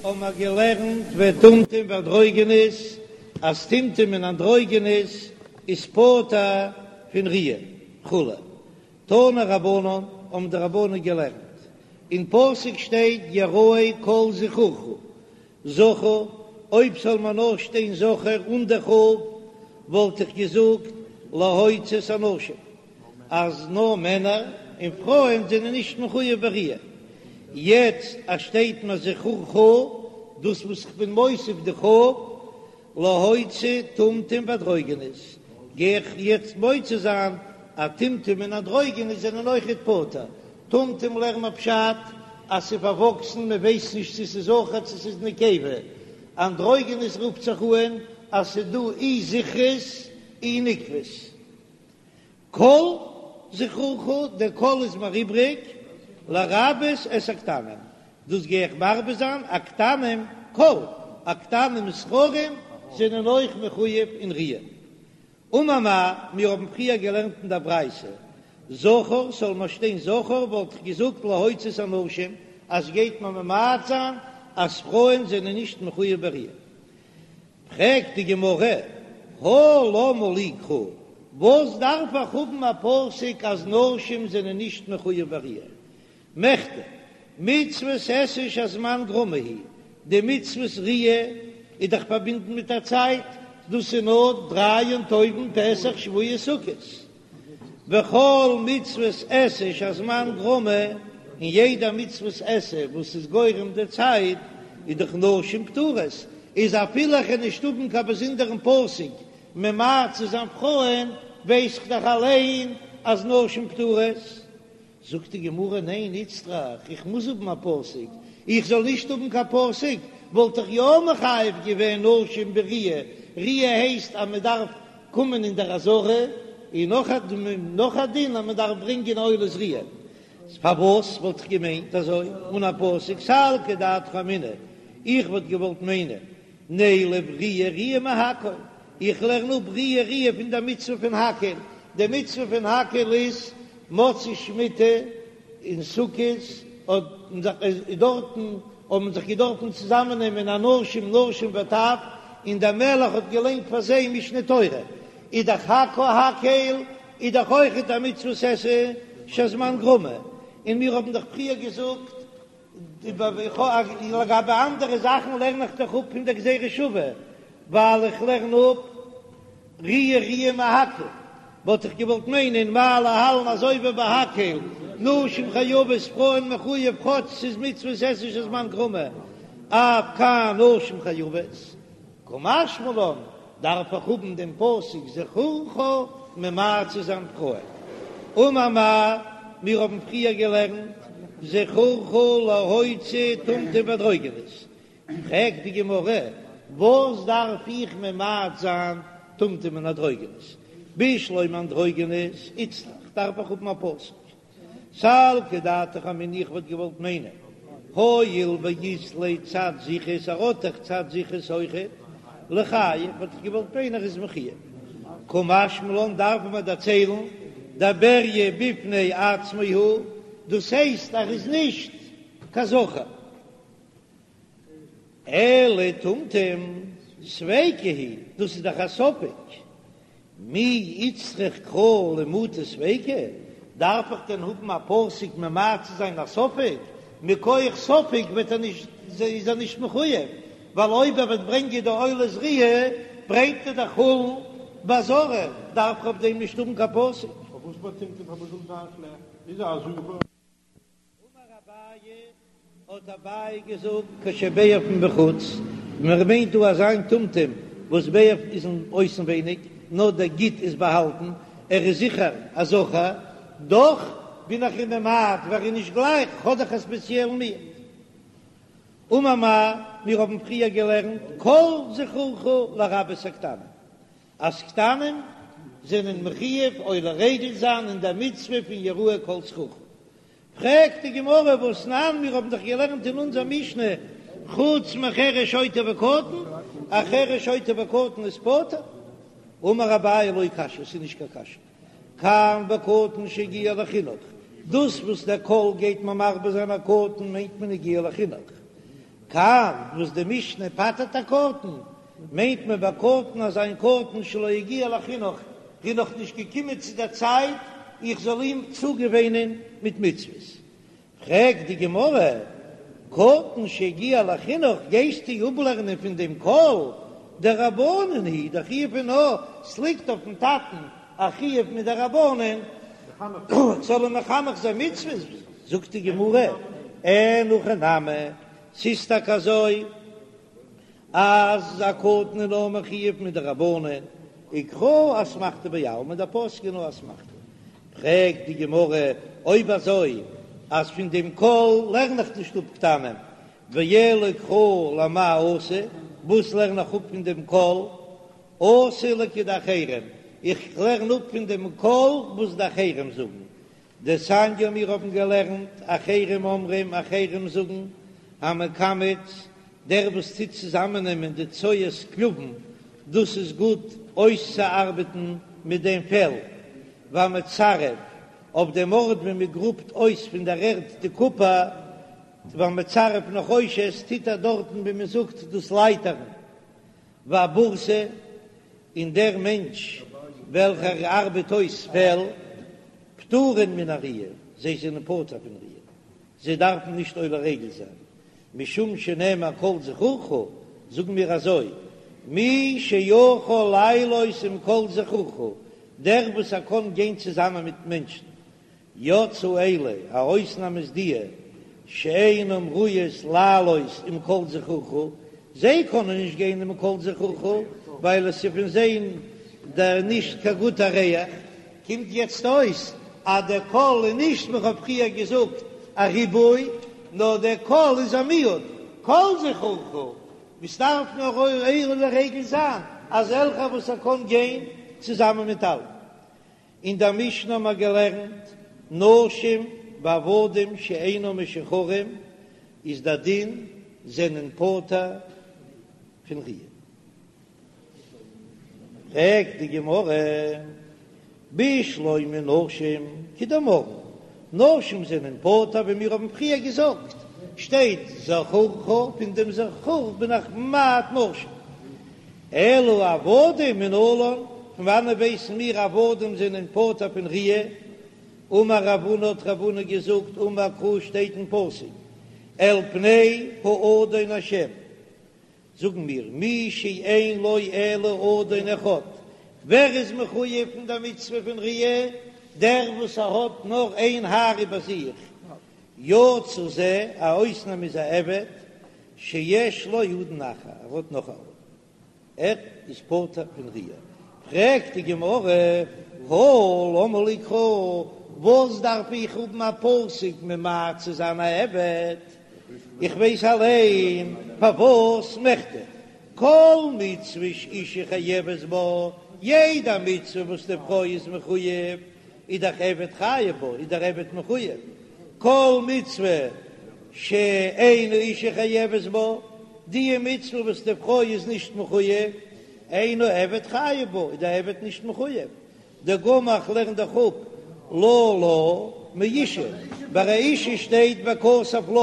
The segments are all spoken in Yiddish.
האבן מיר געלערנט וטומטום ואנדרוגינוס, אז טומטום און אנדרוגינוס איז פטור פון ראיה וכו'. תנו רבנן, האבן די רבנן געלערנט, אין פסוק שטייט יראה כל זכורך, זכר, אויב זאל מען נאר שטיין זכר אן די כ"ף, וואלט איך געזאגט להוציא את הנשים, אז נאר מענער און פרויען זענען נישט מחויב בראיה. יעצט אז שטייט מיר זכורך, דאס וואס איך בין מוסיף די כ"ף, להוציא טומטום ואנדרוגינוס, גיי איך יעצט מוציא זיין אז טומטום און אנדרוגינוס זענען אויכעט פטור. טומטום לערן מיר פשט אז ס'איז פארוואקסן מען ווייסט נישט צו ס'איז זכר צו ס'איז נקבה, אנדרוגינוס רופט זיך אהן אז ס'איז דא אי זכרות אי נקבות. כל זכורך, דער כל איז מיר איבריג, לרבות את הקטנים, דאס גיי איך מרבה זיין, הקטנים כל, הקטנים זכרים זענען אויך מחויב אין ראיה. אמר מר, מיר האבן פריער געלערנט אין דער ברייתא, זכר, זאל מיר שטיין זכר, וואלט איך געזאגט להוציא את הנשים, אז גייט מען ממעט זיין אז פרויען זענען נישט מחויב בראיה. פרעגט די גמרא, הא למה לי קרא, וואס דארף איך האבן א פסוק אז נשים זענען נישט מחויב בראיה? מכדי, מצוות עשה שהזמן גרמא היא, די מצוות ראיה איז דאך פארבינדן מיט א צייט, דאס איז נאר דריי יום טובים פסח שבועות סוכות, וכל מצוות עשה שהזמן גרמא, און יעדע מצוות עשה וואס איז גורם די צייט, איז דאך נשים פטורות, איז אפילו איך וועל נישט האבן קיין באזונדערן פסוק ממעט צו זיין פרויען, ווייס איך דאך אליין אז נשים פטורות. זאגט די גמרא, ניין איצטריך, איך מוז האבן א פסוק, איך זאל נישט האבן קיין פסוק וואלט איך יא מחייב געווען נשים בראיה, ראיה הייסט אז מען דארף קומען אין דער עזרה, און נאך א נאך א דין אז מען דארף ברענגען עולת ראיה, פארוואס וואלט איך געמיינט אזוי אן א פסוק, סלקא דעתך אמינא, איך וואלט געוואלט מיינען נילף ראיה ראיה מהקהל, איך לערן אפ ראיה ראיה פון דער מצוה פון הקהל, די מצוה פון הקהל איז מוצאי שמיטה און סוכות האט דארטן האבן זיך געדארפן צוזאמען נעמען אנשים נשים וטף און דער מלך האט געליינט פאר זיי משנה תורה, איז דאך הקהל איז דאך אויכעט א מצוות עשה שהזמן גרמא, און מיר האבן דאך פריער געזאגט לגבי אנדערע זאכן לערן איך דאך אפ פון דער גזירה שוה, ווייל איך לערן אפ ראיה ראיה מהקהל, וואלט איך געוואלט מיינען מה להלן אזוי ווי ביי הקהל, נשים חייבות פרויען מחויב כאטש ס'איז מצוות עשה שהזמן גרמא, אף כאן נשים חייבות, קא משמע לן דארף איך האבן דעם פסוק זכורך ממעט צו זיין פרויען. אמר מר, מיר האבן פריער געלערנט זכורך להוציא טומטום ואנדרוגינוס, פרעגט די גמרא, וואס דארף איך ממעט זיין טומטום און אנדרוגינוס? בשלמא אנדרוגינוס איצטריך דארף איך האבן א פסוק סלקא דעתך אמינא איך וואלט געוואלט מיינען הואיל ואית ליה צד זכרות ער האט דאך צד זכרות אויכעט ליחייב וואלט איך געוואלט מיינען ער איז מחויב קא משמע לן דארף מען דערציילן דבריה בפני עצמו הוא דאס הייסט ער איז נישט קיין זכר. אלא טומטום ספיקא הוא, דאס איז דאך א ספק, מי איצטריך קרא למעוטי ספיקא, דארף איך דען האבן א פסוק ממעט צו זיין א ספק, מכח ספק וועט ער נישט איז ער נישט מחויב, ווייל אויב ער וועט ברענגען די עולת ראיה ברענגט ער דאך חולין בעזרה, דארף איך אויף דעם נישט האבן קיין פסוק. פארוואס ביי טומטום פארוואס זאל זיין שלעכט? איז א זכר. אמר אביי, האט אביי געזאגט, כשביער פון בחוץ, מען מיינט דא אזא טומטום וואס ביער איז אין אויסנווייניג, נאר דער גיד איז באהאלטן, ער איז זיכער א זכר, דאך בין איך אים ממעט ווייל ער איז נישט גלייך, האט דאך א ספעציעלן מיעוט. אמר מר, מיר האבן פריער געלערנט, כל זכורך לרבות הקטנים, אז קטנים זענען מחויב עולה רגל זיין אין דער מצוה פון יראה כל זכורך. פרעגט די גמרא והתנן, מיר האבן דאך געלערנט אין אונזער משנה חוץ מחרש שוטה וקטן, א חרש שוטה וקטן איז פטור. אמר אביי לא קשיא, ס'איז נישט קיין קשיא, כאן בקטן שהגיע לחינוך, דאס וואס דער כל גייט מיר מרבה זיין א קטן מיינט מען הגיע לחינוך. כאן וואס די משנה פטר'ט א קטן, מיינט מען ביי קטן אזא קטן שלא הגיע לחינוך, איז נאך נישט געקומען צו דער צייט איך זאל אים צוגעוואינען מיט מצוות. פרעגט די גמרא, קטן שהגיע לחינוך גייסטו אפלערנען פון דעם כל דרבנן הוא, דער חיוב איז נאר ס'ליגט אויפן טאטן א חיוב מדרבנן זאל אים מחנך זיין מצוות, זאגט די גמרא, אין הכי נמי, ס'איז טאקע אזוי אז א קטן איז נאר מחויב מדרבנן, וקרא אסמכתא בעלמא, דער פסוק איז נאר אסמכתא. פרעגט די גמרא, אויב אזוי אז פון דעם כל לערן איך נישט אפ קטנים, ואלא קרא למאי אתא, וואס לערן איך אפ פון דעם כל? אתא לכדאחרים, איך לערן אפ פון דעם כל וואס די אחרים זאגן, דתניא מיר האבן געלערנט, אחרים אומרים, אחרים זאגן, המקמץ, דער וואס טוט צוזאמעננעמען די צואת כלבים, דאס איז גוט אויסצוארבעטן מיט דעם פעל, והמצרף, אויף דעם ארט ווי מען גראבט אויס פון דער ערד די קופער, והמצרף נחושת, טוט ער דארטן ווי מען זאגט דאס לייטערן. והבורסי, און דער מענטש וועלכער ארבעט אויס פעל, פטורין מן הראיה, זיי זענען פטור פון ראיה, זיי דארפן נישט עולה רגל זיין, משום שנאמר כל זכורך, זאגן מיר אזוי, מי שיכול לעלות עם כל זכורך, דער וואס ער קען גיין צוזאמען מיט מענטשן, יצאו אלו, א אויסנאם איז די שאינם ראויות לעלות עם כל זכורך, זיי קענען נישט גיין עם כל זכורך ווייל עס איז פון זיי דער נישט קיין גוטע ריח, קומט יעצט אויס אז דער כל איז נישט ווי כ'האב פריער געזאגט א ריבוי, נאר דער כל איז א מיעוט, כל זכורך, וואס דארף נאר עולה רגל זיין אזעלכע וואס ער קען גיין צוזאמען מיט אלע. אין דער משנה האבן מיר געלערנט, נשים ועבדים שאינם משוחררים, איז דער דין זענען פטור פון ראיה. פרעגט די גמרא, בשלמא נשים כדאמרן, נשים זענען פטור ווי מיר האבן פריער געזאגט, שטייט זכורך, פון דעם זכור בין איך ממעט נשים. אלא עבדים מנלן, פון וואנען ווייסן מיר עבדים זענען פטור פון ראיה? אמר רב הונא האט רב הונא געזאגט אמר קרא שטייט אין פסוק אל פני האדון השם, זאגן מיר מי שאין לו אלא אדון אחד, ווער איז מחויב פון דער מצוה פון ראיה? דער וואס ער האט נאר איין האר איבער זיך, יצא זה, א אויסנאם איז א עבד, שיש לו אדון אחר, ער האט נאך א אדון, ער איז פטור פון ראיה. פרעגט די גמרא, הא למה לי קרא, וואס דארף איך האבן א פסוק ממעט צו זיין א עבד, איך ווייס אליין פארוואס מכדי כל מצוה שאישה חייבת בה, יעדע מצוה וואס די פרוי איז מחויב, איז דאך עבד חייב בה, איז דער עבד מחויב, כל מצוה שאין האישה חייבת בה, די מצוה וואס די פרוי איז נישט מחויב, אין העבד חייב בה, איז דער עבד נישט מחויב, דגמר איך לערן דאך אפ לה לה מאישה, ביי א אישה שטייט וכתב לה,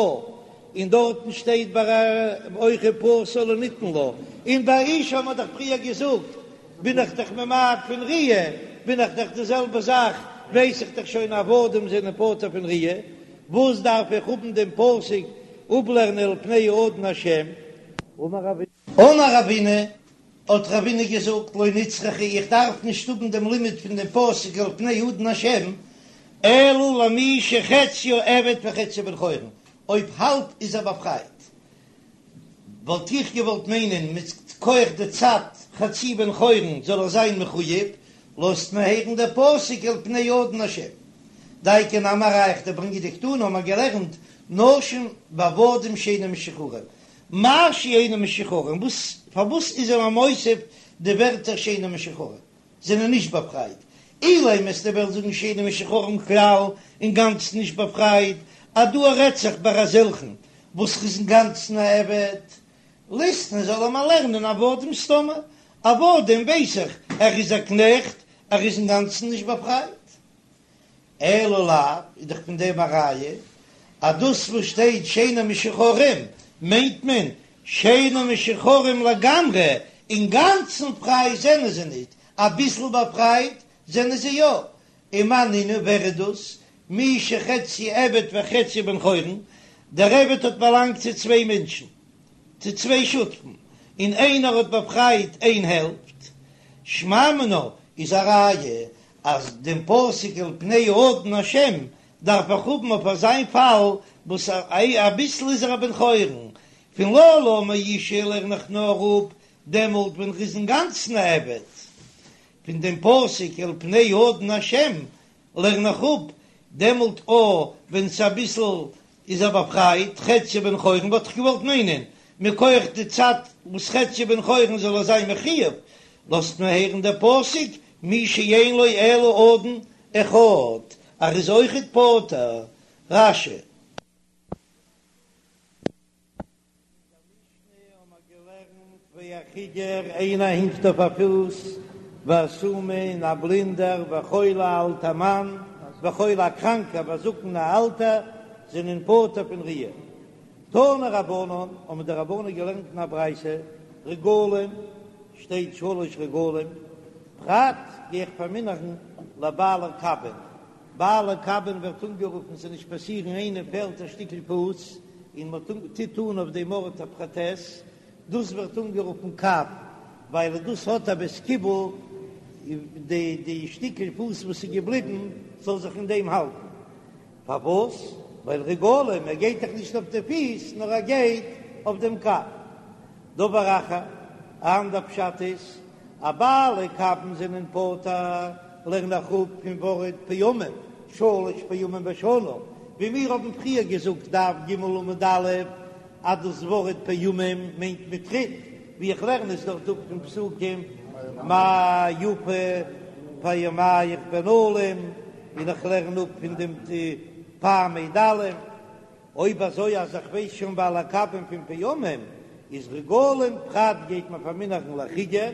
און דארטן שטייט ביי א אויך ופסל לא ניתן לה, און ביי אישה האט מען דאך פריער געזאגט בין איך דאך ממעט פון ראיה, בין איך דאך די זעלבע זאך, ווייס איך דאך שוין עבדים זענען פטור פון ראיה, וואס דארף איך האבן דעם פסוק אפלערנען אל פני האדון השם? אמר רבינא, האט רבינא געזאגט, לא נצרכא, איך דארף נישט האבן דעם לימוד פון דעם פסוק אל פני האדון השם, אלא למי שחציו עבד וחציו בן חורין, אויב האלב איז ער באפרייט, וואלט איך געוואלט מיינען מכח די צד חצי בן חורין זאל ער זיין מחוייב, לאזט מען הערן דער פסוק אל פני האדון השם. דאיכא נמי א ראיה איך ברענג דקתני האבן מיר געלערנט נשים ועבדים שאינם משוחררים, מאי שאינם משוחררים, וואס פארוואס איז ער מוסיף די ווערטער שאינם משוחררים? זענען נישט באפרייט, אילימא וועסטו וועלן זאגן שאינם משוחררים כלל אינגאנצן נישט באפרייט, אז דא רעדט זיך ביי אזעלכן וואס איז אינגאנצן א עבד, ליתני זאל ער מיר לערנען עבדים סתמא, עבדים ווייס איך ער איז א קנעכט ער איז אינגאנצן נישט באפרייט. אלא לאו, איז דאך פון דעם א ראיה אז דאס וואס שטייט שאינם משוחררים. מיינט מען שאינן משוחררים לגמרי, אינגאנצן פריי זענען זיי ניט, אביסל באפרייט זענען זיי יא. ומאי נינהו, ווער איז דאס? מי שחציו עבד וחציו בן חורין, דער עבד האט באלאנגט צו צוויי מענטשן, צו צוויי שותפים, און איינער האט באפרייט איין העלפט, שמע מינה איז א ראיה אז דעם פסוק אל פני האדון השם דארף איך האבן אויף אזיין פאל וואס אביסל איז ער א בן חורין, פון ללה מאישה לערן איך נאר אפ דעמאלט ווען ר'איז אינגאנצן א עבד, פון דעם פסוק אל פני האדון השם לערן איך אפ דעמאלט או ווען ס'אביסל איז ער באפרייט, חציו בן חורין וואלט איך געוואלט מיינען מכח די צד וואס חציו בן חורין זאל ער זיין מחויב, לאזט מיר הערן דער פסוק מי שאין לו אלא אדון אחד, ער איז אויכעט פטור. רש"י. אין דער משנה האבן מיר געלערנט והחיגר איינער הינקט אויף א פוס, והסומא און א בלינדער, וחולה א אלטער מאן, וחולה א קראנקער, והזקן א אלטער, זענען פטור פון ראיה. תנו רבנן, האבן די רבנן געלערנט אין א ברייתא, רגלים, שטייט שלש רגלים, פרט גיי איך פארמינערן לבעלי קבין, בעלי קבין ווערט אנגערופן ס'זאל נישט פאסירן איינעם פעלט א שטיקל פוס און מען טוט אן אויף דעם ארט א פראטעז, דאס ווערט אנגערופן קב ווייל דאס האט א בית קיבול די די שטיקל פוס וואס איז געבליבן זאל זיך אין דעם האלטן, פארוואס? ווייל רגלים ער גייט דאך נישט אויף די פיס נאר ער גייט אויף דעם קב. דבר אחר, א אנדער פשט איז אז בעלי קבין זענען פטור, לערן איך אפ פון ווארט פעמים, שלש פעמים בשנה, ווי מיר האבן פריער געזאגט דף ג עמוד א', אז דאס ווארט פעמים מיינט מיט טריט, ווי איך לערן עס דארט אפ פון פסוקים מה יפו פעמיך בנעלים, און איך לערן אפ פון דעם פעמי דלים. אויב אזוי אז איך ווייס שוין בעלי קבין פון פעמים איז רגלים פרט גייט מען פארמינערן לחיגר,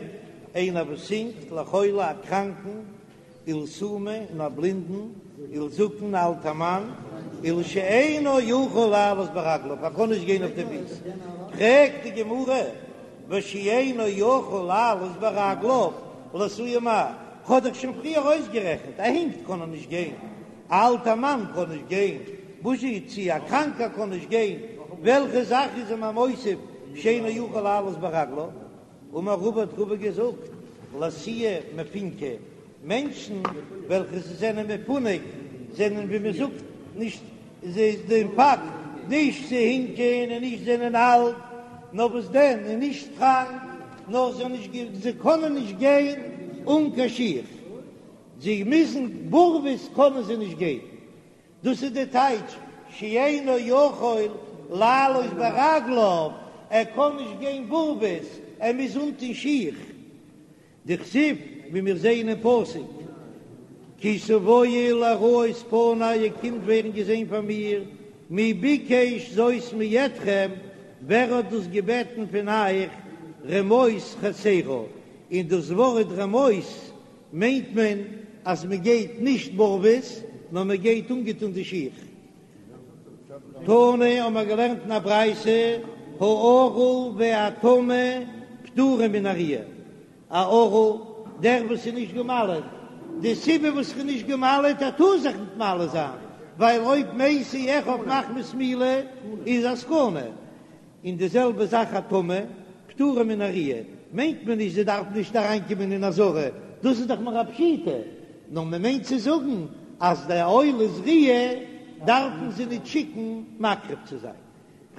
איינער וואס הינקט, לחולה א קראנקן, ולסומא און א בלינדן, ולזקן א אלטע מאן, ולשאינו יכול לעלות ברגליו ער קען נישט גיין אויף די פיס, פרעגט די גמרא ושאינו יכול לעלות ברגליו לאתויי מאי, כ'האב דאך שוין פריער אויסגערעכנט, ער הינקט קען ער נישט גיין, א אלטע מאן קען נישט גיין, בוזשי צי א קראנקער קען נישט גיין, וועלכע זאך איז אים א מוסיף שאינו יכול לעלות ברגליו? אמר רבא האט רבא געזאגט, לאתויי מפונקי, מענטשן וועלכע זיי זענען מפונק זענען ווי מען זאגט נישט זיי דעם פאקט נישט צו הינקען און נישט זענען אלט, נאר וואס דען און נישט קראנק, נאר זיי נישט זיי קענען נישט גיין אן קיין שיך. זיי מוזן בארוועס קענען זיי נישט גיין, דאס איז די טייטש שאינו יכול לעלות ברגליו, ער קען נישט גיין בארוועס, ער מוז אנטון שיך, דכתיב ווי מיר זעען אין פסוק כי תבואו לראות פני איר קומט ווערן געזען פאר מיר, מי ביקש זאת מידכם, ווער האט דאס געבעטן פון אייך, רמוס חצרה, און דאס ווארט רמוס מיינט מען אז מען גייט נישט בארוועס נאר מען גייט אנגעטון די שיך. תנא האבן מיר געלערנט אין א ברייתא הערל והטמא פטורים מן הראיה, א ערל דער וואס איז נישט גע'מל'עט, די סיבה וואס ער איז נישט גע'מל'עט ער טאר זיך נישט מל זיין ווייל אויב מתו אחיו מחמת מילה איז א סכנה, און די זעלבע זאך א טמא, פטורה מן הראיה, מיינט מען נישט זי דארף נישט אריינקומען אין עזרה, דאס איז דאך מער א פשיטא, נאר מען מיינט צו זאגן אז די עולת ראיה דארפן זיי נישט שיקן מקריב צו זיין.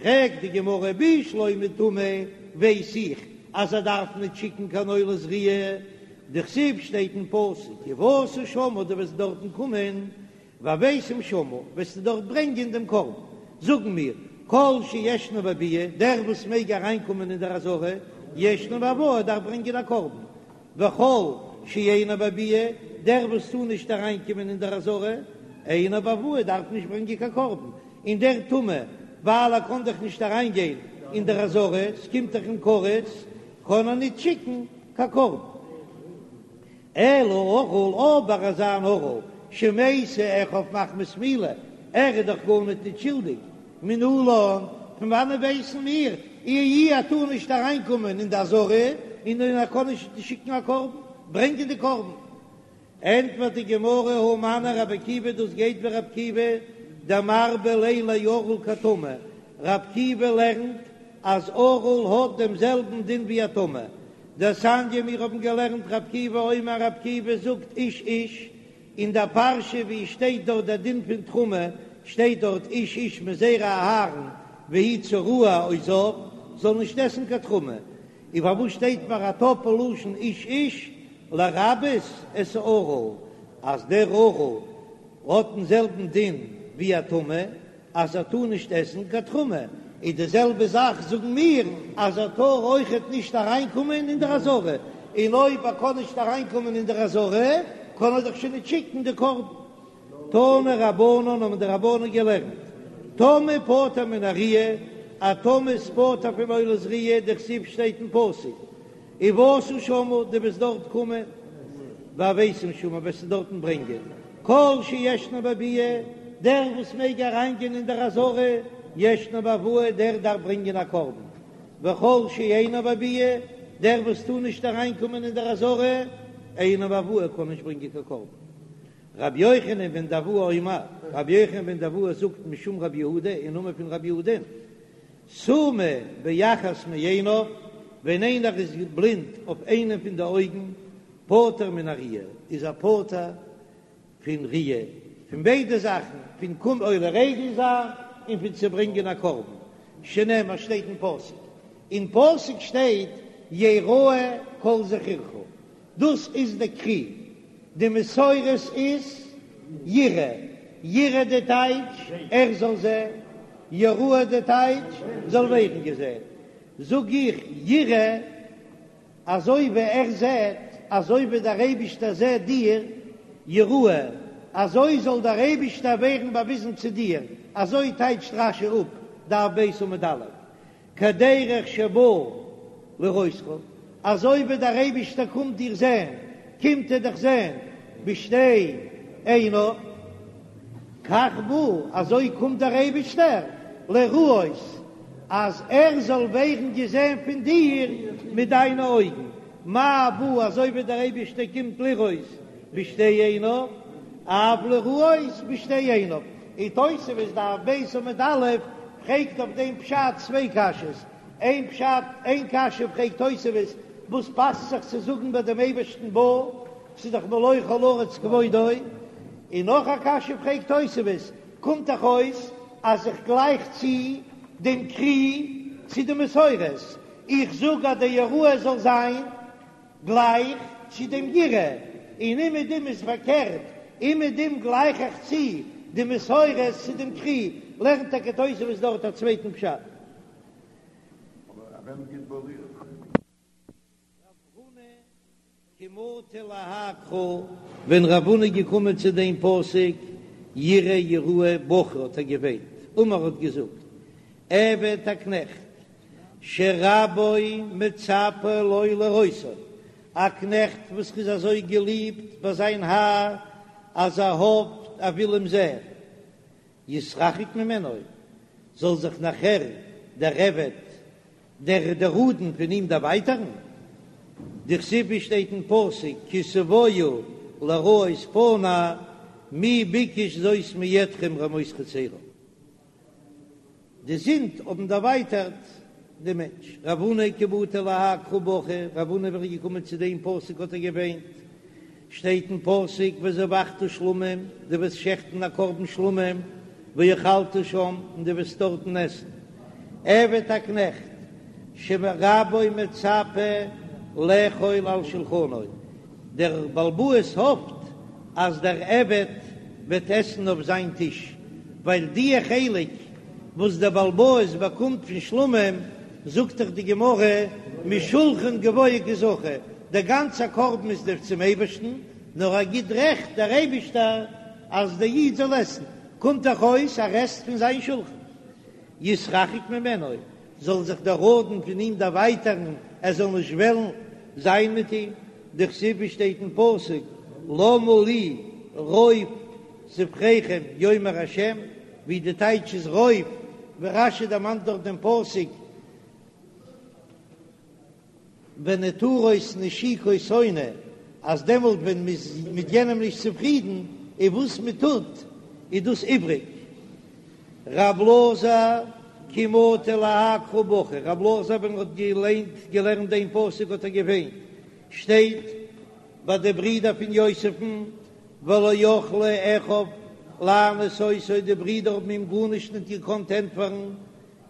פרעגט די גמרא בשלמא טמא ווייס איך אז ער דארף נישט שיקן קיין עולת ראיה, דכתיב שטייט אין פסוק ובאת שמה דו וועסט דארטן קומען והבאתם שמה, וועסטו דארט ברענגען דעם קרבן. זאגן מיר, כל שישנו בביאה, דער וואס מעג אריינקומען אין דער עזרה, ישנו בהבאה, דארף ברענגען א קרבן. וכל שאינו בביאה, דער וואס טאר נישט אריינקומען אין דער עזרה, אינו בהבאה, דארף נישט ברענגען קיין קרבן. און דער טמא, ווייל ער קען דאך נישט אריינגיין אין דער עזרה, ס'קומט דאך אים כרת, קען ער נישט שיקן קיין קרבן. אלא ערל, אבער אזא אן ערל שמתו אחיו מחמת מילה, ער איז דאך גארניט ניט שולדיג, מנלן? פון וואנען ווייסן מיר אי ער טאר נישט אריינקומען אין די עזרה און ער קען נישט שיקן א קרבן, ברענגען די קרבן? ענטפערט די גמרא הא מני רבי עקיבא דאס גייט ווי רבי עקיבא דמרבה ליה לערל כטמא, רבי עקיבא לערנט אז ערל האט דעם זעלבן דין ווי א טמא, דתניא מיר האבן געלערנט רבי עקיבא אומר רבי עקיבא זאגט איש איש, אין דער פרשה ווי שטייט דארט דער דין פון תרומה שטייט דארט איש איש מזרע אהרן והוא צרוע או זב זאל נישט עסן קיין תרומה, און פארוואס שטייט פאר א טאפל לשון איש איש לרבות את הערל אז דער ערל האט דעם זעלבן דין ווי א טמא אז ער טאר נישט עסן קיין תרומה, איז די זעלבע זאך זאגן מיר אז ער טאר אויכעט נישט אריינקומען אין דער עזרה, און אויב ער קען נישט אריינקומען אין דער עזרה קען ער דאך שוין נישט שיקן די קרבן. תנו רבנן האבן די רבנן געלערנט, טמא פטור מן הראיה, א טמא איז פטור פון עולת ראיה, דכתיב שטייט אין פסוק, ובאת שמה, דו וועסט דארט קומען, והבאתם שמה, וועסטו דארטן ברענגען, כל שישנו בביאה, דער וואס מעג אריינגיין אין דער עזרה, ישנו בהבאה, דער דארף ברענגען א קרבן, וכל שאינו בביאה, דער וואס טאר נישט אריינקומען אין דער עזרה, אינו בהבאה, קען נישט ברענגען קיין קרבן. רבי יוחנן בן דהבאי אומר, רבי יוחנן בן דהבאי זאגט משום רבי יהודה אין נאמען פון רבי יהודה, סומא באחת מעיניו, ווען איינער איז בלינד אויף איינעם פון די אויגן, פטור מן הראיה, איז ער פטור פון ראיה, פון ביידע זאכן, פון קום עולה רגל זיין און פון צו ברענגען א קרבן, שנאמר שטייט אין פסוק, אין פסוק שטייט יראה כל זכורך, דאס איז די קרי, די מסורת איז יראה, יראה די טייטש ער זאל זען, יראה די טייטש זאל ווערן געזען, זאג איך יראה אזוי ווי ער זעט, אזוי ווי דער אייבישטער זעט דיר, יראה אזוי זאל דער אייבישטער ווערן באוויזן צו דיר, אזוי טייטשט רש"י אפ דף ב' עמוד א', כדרך שבא לראותך, אזוי ווי דער אייבישטער קומט דיר זען, קומט ער דיך זען בשתי עיניו, כך בא, אזוי קומט דער אייבישטער לראות, אז ער זאל ווערן געזען פון דיר מיט דיינע אויגן, מה בא, אזוי ווי דער אייבישטער קומט לראות בשתי עיניו, אף לראות בשתי עיניו. און תוספות דף ב' עמוד א' פרעגט אויף דעם פשט צוויי קשיות, איין פשט, איין קשיא פרעגט תוספות, וואס פאסט זיך צו זאגן ביי דעם אייבערשטן בא, ס'איז דאך מלא כל הארץ כבודו, און נאך א קשיא פרעגט תוספות, קומט דאך אויס אז איך גלייך צו דעם קרי צו די מסורת, איך זאג אז די יראה זאל זיין גלייך צו דעם יראה, און אומעדום איז פארקערט, אומעדום גלייך איך צו די מסורת צו דעם קרי, לערנט טאקע תוספות דארט א צווייטן פשט. רב הונא כי מטא להאי קרא, ווען רב הונא איז געקומען צו דעם פסוק יראה יראה בכה האט ער געוויינט, אמר האט געזאגט, עבד א קנעכט שרבו מצפה לו לראותו, א קנעכט וואס איז אזוי געליבט ביי זיין האר אז ער האפט ער וויל אים זען, יתרחק ממנו, זאל זיך נאכער דער עבד, דער דער אדון פון אים דערווייטערן, דכתיב ווי שטייט אין פסוק כי תבואו לראות פני מי ביקש זאת מידכם רמוס חצרי. די זינד האבן דערווייטערט דעם מענטש. רב הונא כי מטא להאי קרא בכה, רב הונא ווען ער איז געקומען צו דעם פסוק האט ער געוויינט, שטייט אין פסוק וזבחת שלמים, דו וועסט שעכטן א קרבן שלמים, ואכלת שם, און דו וועסט דארטן עסן. עבד א קנעכט, שרבו מצפה לאכול על שלחנו, דער בעל הבית האפט אז דער עבד וועט עסן אויף זיין טיש, ווייל דיע חלק וואס דער בעל הבית באקומט פון שלמים, זאגט דאך די גמרא משולחן גבוה קא זכו, דער גאנצער קרבן איז דאך צום אייבערשטן, נאר ער גיט רעכט דער אייבישטער אז דער איד זאל עסן, קומט דאך אויס ער עסט פון זיין שולחן. יתרחק ממנו, זאל זיך דער אדון פון אים דערווייטערן, ער זאל נישט וועלן זיין מיט אים, דכתיב ווי שטייט אין פסוק, למה לי רוב זבחיכם יאמר השם, ווי די טייטש איז רוב. ווי רש"י דערמאנט דארט דעם פסוק ונעתרות נשיקות שונא, אז דעמאלט ווען מ'איז מיט יענעם נישט צופרידן איז וואס מ'טוט איז דאס איבריג. ר' אלעזר כי מטי להאי קרא בכי, ר' אלעזר ווען ער האט געליינט געלערנט דעם פסוק האט ער געוויינט, שטייט ביי די ברידער פון יוסף'ן ולא יכלו אחיו לענות אותו, די ברידער האבן אים גארנישט ניט געקאנט ענטפערן,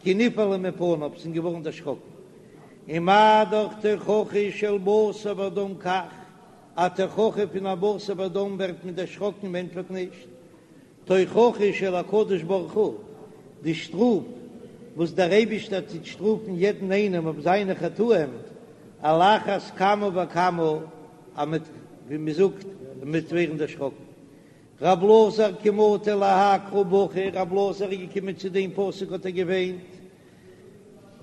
כי נבהלו מפניו, זענען געווארן דערשראקן. ומה דאך תוכחה של בשר ודם כך, א תוכחה פון א בשר ודם ווערט מען דערשראקן און ענטפערט נישט. תוכחה של הקדוש ברוך הוא, די שטראף וואס דער אייבישטער טוט שטראפן יעדן איינעם אויף זיינע חטאים, על אחת כמה וכמה אז מ'וועט, ווי מ'זאגט, מ'וועט ווערן דערשראקן. רב אלעזר כי מטי להאי קרא בכי, רב אלעזר איז געקומען צו דעם פסוק האט ער געוויינט,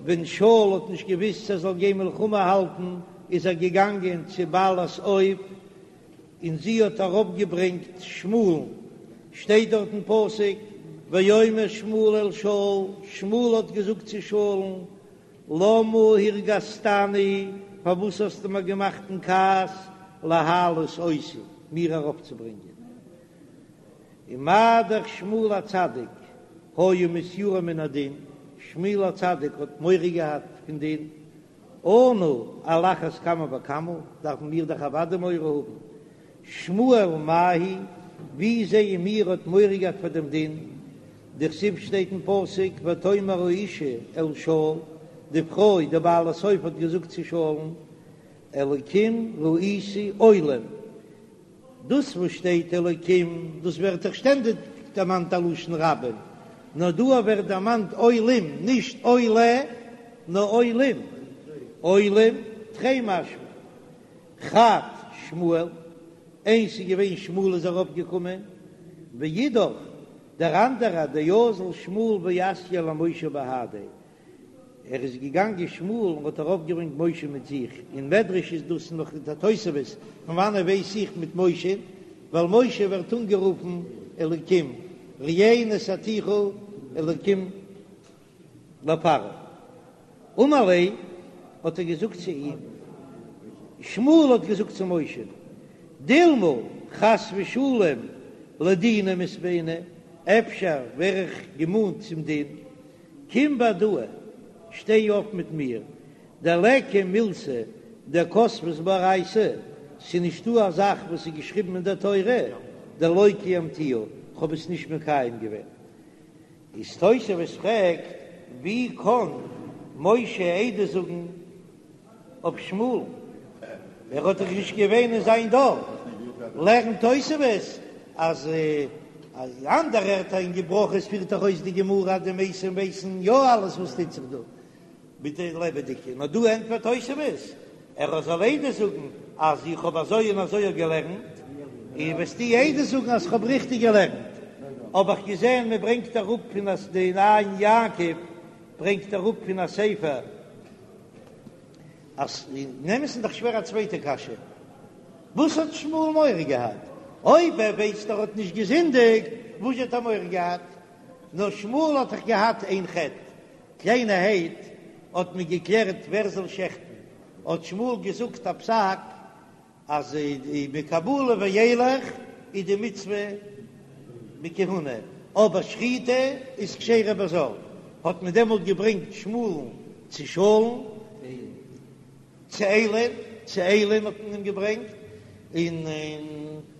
ווען שאול האט נישט געוויסט צו ער זאל גיין מלחמה האלטן איז ער געגאנגען צו בעלת אוב און זי האט ארויפגעברענגט שמואל'ן, שטייט דארט אין פסוק ויאמר שמואל אל שאול, שמואל האט געזאגט צו שאול'ן, למה הרגזתני, פארוואס האסטו מיר געמאכט אין כעס, להעלות אותי, מיר ארויפצוברענגען. ומה דאך שמואל הצדיק היה מתיירא מן הדין, שמואל הצדיק האט מורא געהאט פון דין, אנו על אחת כמה וכמה, דארפן מיר דאך אוודאי מורא האבן. שמואל מאי היא, ווי זעען מיר האט מורא געהאט פאר דעם דין? דכתיב שטייט אין פסוק ותאמר האשה אל שאול, די פרוי די בעלת אוב האט געזאגט צו שאול'ן, אלקים ראיתי עולים, דאס וואס שטייט אלקים דאס ווערט דאך שטענדיג דערמאנט א לשון רבים, נאר דא ווערט דערמאנט עולים, נישט עולה נאר עולים, עולים תרי משמע חד שמואל, איינס איז געווען שמואל איז ארויף געקומען, ואידך דער אנדערע דאזל שמואל ואתייה למשה בהדיה, ער איז געגאנגען שמואל און האט ארויף געברענגט משה מיט זיך, אין מדרש איז דאס נאך די תוספות, פון וואנעט ווייס איך מיט משה, ווייל משה ווערט אנגערופן אלקים, ראה נתתיך אלקים לפרעה. אמר ליה, האט ער געזאגט צו אים, שמואל האט געזאגט צו משה, דילמא חס ושלום לדינא מתבעינא, אפשר ווער איך געמאנט צום דין, קום בהדאי, שטיי אויף מיט מיר, דליכא מילתא דכתבת באורייתא, ס'איז נישטא א זאך וואס איז געשריבן אין דער תורה, דלא קיימתיה, כ'האב עס נישט מקיים געווען. איז תוספות פרעגט, ווי קען משה עדות זאגן אויף שמואל? ער האט דאך נישט געווען אין זיין דור. לערנט תוספות אז אנדערע ערטער אין ברכות פירט דאך אויס די גמרא אז די מתים ווייסן יא אלעס וואס טוט זיך דא מיט די לעבעדיגע, נאר דא ענטפערט תוספות ער זאל עדות זאגן אז איך האב אזוי און אזוי געלערנט, און וועסטו עדות זאגן אז כ'האב ריכטיג געלערנט. האב איך געזען מען ברענגט אראפ פון א די עין יעקב ברענגט אראפ פון א ספר אז אין אמת'ן איז דאך שווער א צווייטע קשיא, וואס האט שמואל מורא געהאט? אויב ער ווייסט ער האט נישט געזינדיגט, וואס האט ער מורא געהאט? נאר שמואל האט דאך געהאט איין חטא, קליינערהייט האט מען געקלערט ווער זאל שעכטן, האט שמואל געזאגט א פסק אז מקבלה ואילך איז די מצוה בכהונה, אבער שחיטה איז כשרה בזר, האט מען דעמאלט געברענגט שמואל'ן צו שאול'ן, צו עלי'ן, צו עלי'ן האט מען אים געברענגט, און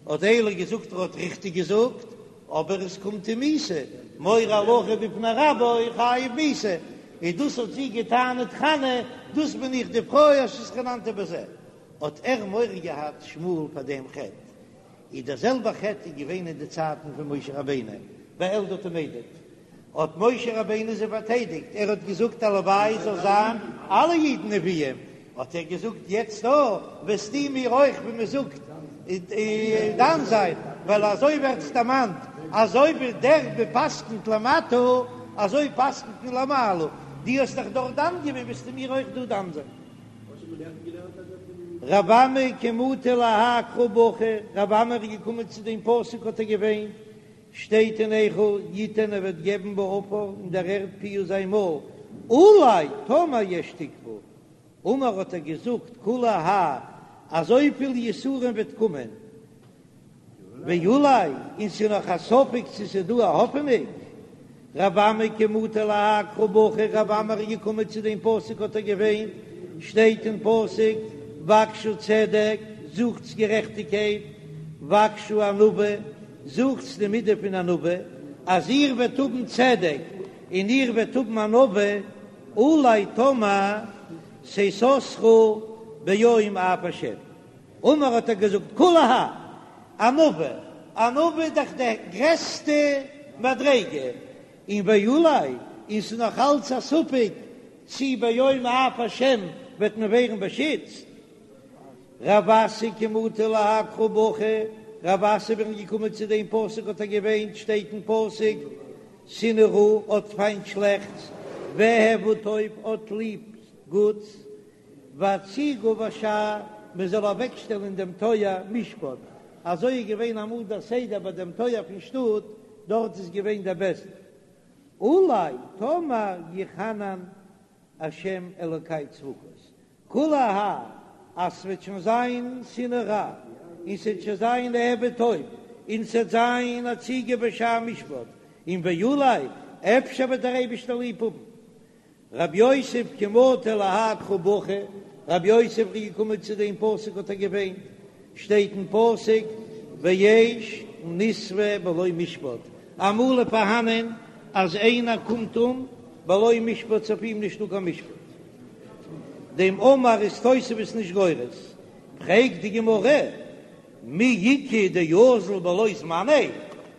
האט עלי געזאגט ער האט ריכטיג געזאגט, אבער עס קומט אים מיתה, מורה הלכה בפני רבו חייב מיתה, און דאס האט זי געטענה'ט חנה, דאס בין איך די פרוי אשר התחננתי בזה, האט ער מורא געהאט שמואל פאר דעם חטא, איז דער זעלבער חטא איז געווען אין די צייטן פון משה רבינו ביי אלדד ומידד, האט משה רבינו זיי פארטיידיגט, ער האט געזאגט הלוואי זאל זיין אלע אידן נביאים, האט ער געזאגט יעצט דא וועסטו מיר אויך ווי מען זאגט דן זיין, ווייל אזוי ווערט עס דערמאנט, אזוי ווי דער מ'פסק'נט למטה אזוי פסק'נט מען למעלה, דו האסט דאך דארט דן געווען וועסטו מיר אויך דא דן זיין. רב אמי כי מטי להאי קרא בכי, רב אמי איז געקומען צו דעם פסוק האט ער געוויינט. שטייט אין איכה, יתן ער וועט געבן בעפר אין דער ערד פיהו זיין מויל, אולי טאמער יש תקוה, אמר האט ער געזאגט כולי האי אזויפיל יסורים וועט קומען, ואולי, און ס'איז נאך א ספק צו ס'איז דא א האפענונג. רב אמי כי מטי להאי קרא בכי, רב אמי איז געקומען צו דעם פסוק האט ער געוויינט, שטייט אין פסוק בקשו צדק, זוכטס גערעכטיגקייט, בקשו ענווה, זוכטס די מידה פון ענווה, אז איר וועט האבן צדק און איר וועט האבן ענווה, אולי טאמער תסתרו ביום אף השם. אמר האט ער געזאגט כולי האי ענווה, ענווה איז דאך די גרעסטע מדריגה, און ואולי, און ס'איז נאך אלץ א ספק צי ביום אף השם וועט מען ווערן באשיצט. רב אסי כי מטי להאי קרא בכי, רב אסי ווען געקומען צו דעם פסוק האט ער געוויינט, שטייט אין פסוק, שנאו רע, האט פיינט שלעכטס, ואהבו טוב, האט ליב גוטס, והציגו בשער, מען זאל אוועקשטעלן אין דעם טויער משפט, אזוי איז געווען אמאל דער סדר ביי דעם טויער פון שטאט, דארט איז געווען דער בית דין. אולי טאמער יחנן השם אלוקי צבקות, כולי האי אז ס'וועט שוין זיין שנאו רע, און ס'וועט שוין זיין אהבו טוב, און ס'וועט זיין הציגו בשער משפט, און ואולי אפשר וועט דער אייבישטער ליב האבן רב יוסף כי מטי להאי קרא בכי, רב יוסף איז געקומען צו דעם פסוק האט ער געוויינט, שטייט אין פסוק ואש נספה בלא משפט, אמאל איז פארהאנען אז איינער קומט אום בלא משפט ס'אויף אים נישטא קיין משפט, דעם אמר איז תוספות נישט גורס, פרעגט די גמרא מי איכא דאזיל בלא זמניה,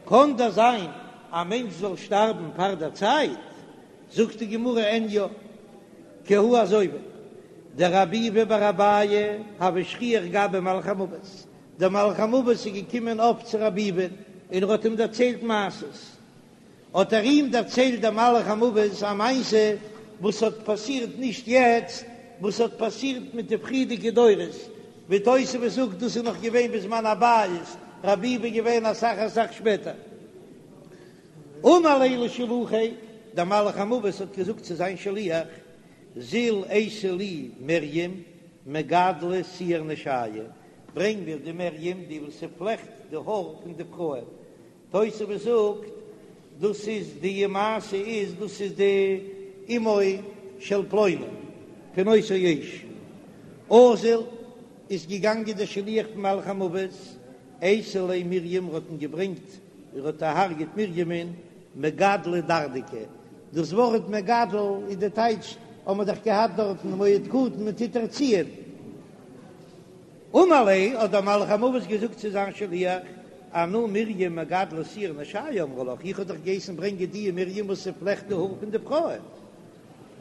קען דאס זיין א מענטש זאל שטארבן פאר דער צייט? זאגט די גמרא אין יא כי הא אזוי ווי דרב ביבי בר אביי הוה שכיח גביה מלאך המוות, דער מלאך המוות איז געקומען אפט צו רב ביבי און ער האט אים דערציילט מעשות, האט ער אים דערציילט דער מלאך המוות א מעשה וואס האט פאסירט נישט יעצט, וואס האט פאסירט מיט די פריערדיגע דורות, ווי תוספות זאגט דאס איז נאך געווען בזמן הבית, רב ביבי איז געווען אסאך אסאך שפעטער. אמר ליה לשלוחיה, דער מלאך המוות האט געזאגט צו זיין שליח, זיל אייתי לי מרים מגדלא שיער נשיא, ברענג מיר די מרים די וואס ס'פלעכט די האר פון די פרויען, תוספות זאגט דאס איז די מעשה איז דאס איז די אמו של פלוני פון אותו האיש, אזל איז געגאנגען דער שליח פון מלאך המוות, אייתי ליה מרים האט אים געברענגט ער האט דערהרגעט מרימ'ן מגדלא דרדקי, דאס ווארט מגדל איז די טייטש האבן מיר דאך געהאט דארטן מועד קטן מען טוט ערציען. אמר ליה האט דער מלאך המוות געזאגט צו זיין שליח, אנא מרים מגדלא שער נשיא אמרי לך, איך האב דיך געהייסן ברענגען די מרים וואס ס'פלעכט די האר פון די פרויען.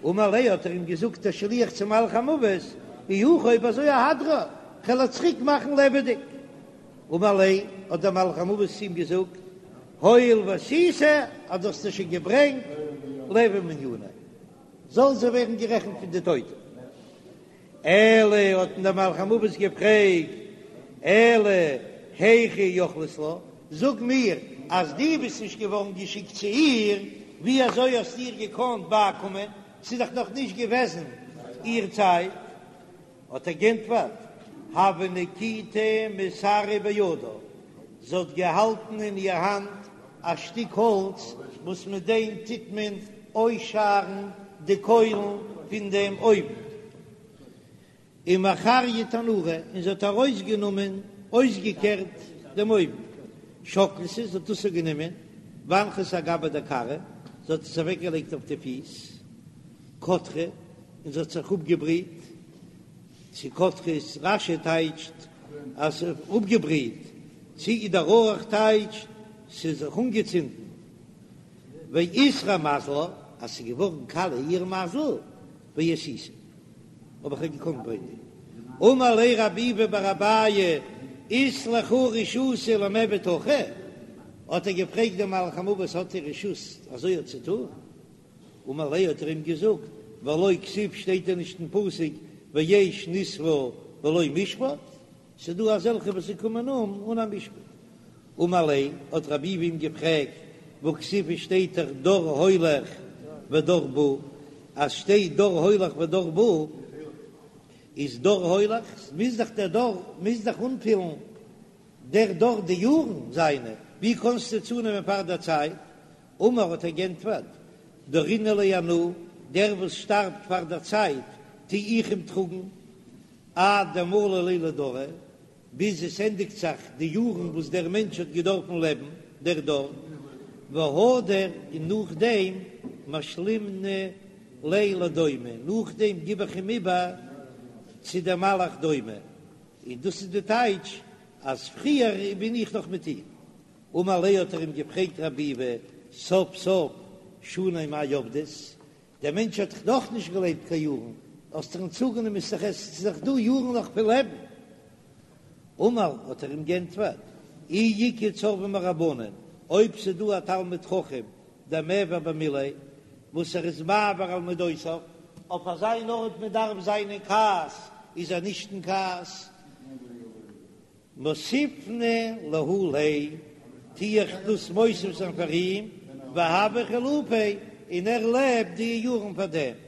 אמר ליה האט ער אים געזאגט דער שליח צום מלאך המוות, אי הכי אויב אזוי אהדרה, כ'על איר צוריק מאכן לעבעדיג. אמר ליה, האט דער מלאך המוות צו אים געזאגט, הואיל ואתיתה, אז דו האסט עס שוין געברענגט, ליהוי מניינא, זאל זי ווערן גערעכנט פון די טויטע. אלא, האט אים דער מלאך המוות געפרעגט, אלא היכי יכלת לה, זאג מיר, אז דו ביסט נישט געווארן געשיקט צו איר, ווי אזוי האסטו איר געקאנט בייקומען, ס'איז דאך נאך נישט געוועזן איר צייט. האט ער גענטפערט, הוה נקיטא מסרא בידה, זי האט געהאלטן אין איר האנט א שטיק האלץ וואס מיט דעם טוט מען אויסשארן די קוילן פון דעם אויוון, ומחריא תנורא, און זי האט ארויסגענומען, אויסגעקערט דעם אויוון, שקלתא, זי האט דאס גענומען, ואנחתא אגבה דכרעא, זי האט עס אוועקגעלייגט אויף די פיס, קדחה, און זי האט זיך אפגעבריט, צו קדחה איז רש"י טייטשט אז ס'איז אפגעבריט, צו דער ארוך טייטשט ס'איז זיך אנגעצינדן, ואיתרע מזלה, אז ס'איז געווארן קאליע איר מזל, ואיתיתה, האב איך איר געקאנט ברענגען. אמר ליה רב ביבי בר אביי, אית לכו רשותא למיעבד הכי? האט ער געפרעגט דעם מלאך המוות האט איר רשות אזוי צו טון? אמר ליה האט ער אים געזאגט, והלא כתיב שטייט דען נישט אין פסוק ואש נספה בלא משפט, ס'איז דא אזעלכע וואס זיי קומען אום אן א משפט. אמר ליה, האט רב ביבי אים געפרעגט, והכתיב שטייט דאך דור הולך ודור בא, אז שטייט דור הולך ודור בא, איז דור הולך, מוז דאך דער דור מוז דאך אנפילן דער דור די יארן זיינע, ווי קענסטו צונעמען פאר דער צייט? אמר האט ער גענטפערט, דרינא ליה אנא, דער וואס שטארבט פאר דער צייט טו איך אים טראגן, עד דמלו ליה לדרא, ביז עס ענדיגט זיך די יארן וואס דער מענטש האט געדארפן לעבן, דער דור, והדר, און נאכדעם משלימנא ליה לדומא, נאכדעם גיב איך אים איבער צו דער מלאך דומא, און דאס איז די טייטש אז פריער בין איך נאך מיט אים. אמר ליה האט ער אים געפרעגט רב ביבי, סוף סוף שני מאי עבדת, דער מענטש האט דאך נאך נישט געלעבט קיין יארן, האסט אים צוגענומען איז דאך עס איז דאך דא יארן נאך פון לעבן. אמר האט ער אים גענטפערט, אי איכא צורבא מרבנן, אויב ס'איז דא א תלמיד חכם דמעביר במיליה, וואס ער איז מעביר על מדותיו, אויף אזא ארט מען דארף זיין אין כעס איז ער נישט אין כעס, מוסיפנא להו ליה, טו איך דאס מוסיף זיין פאר אים, והוה חילופיה, און ער לעבט די יארן פאר דעם.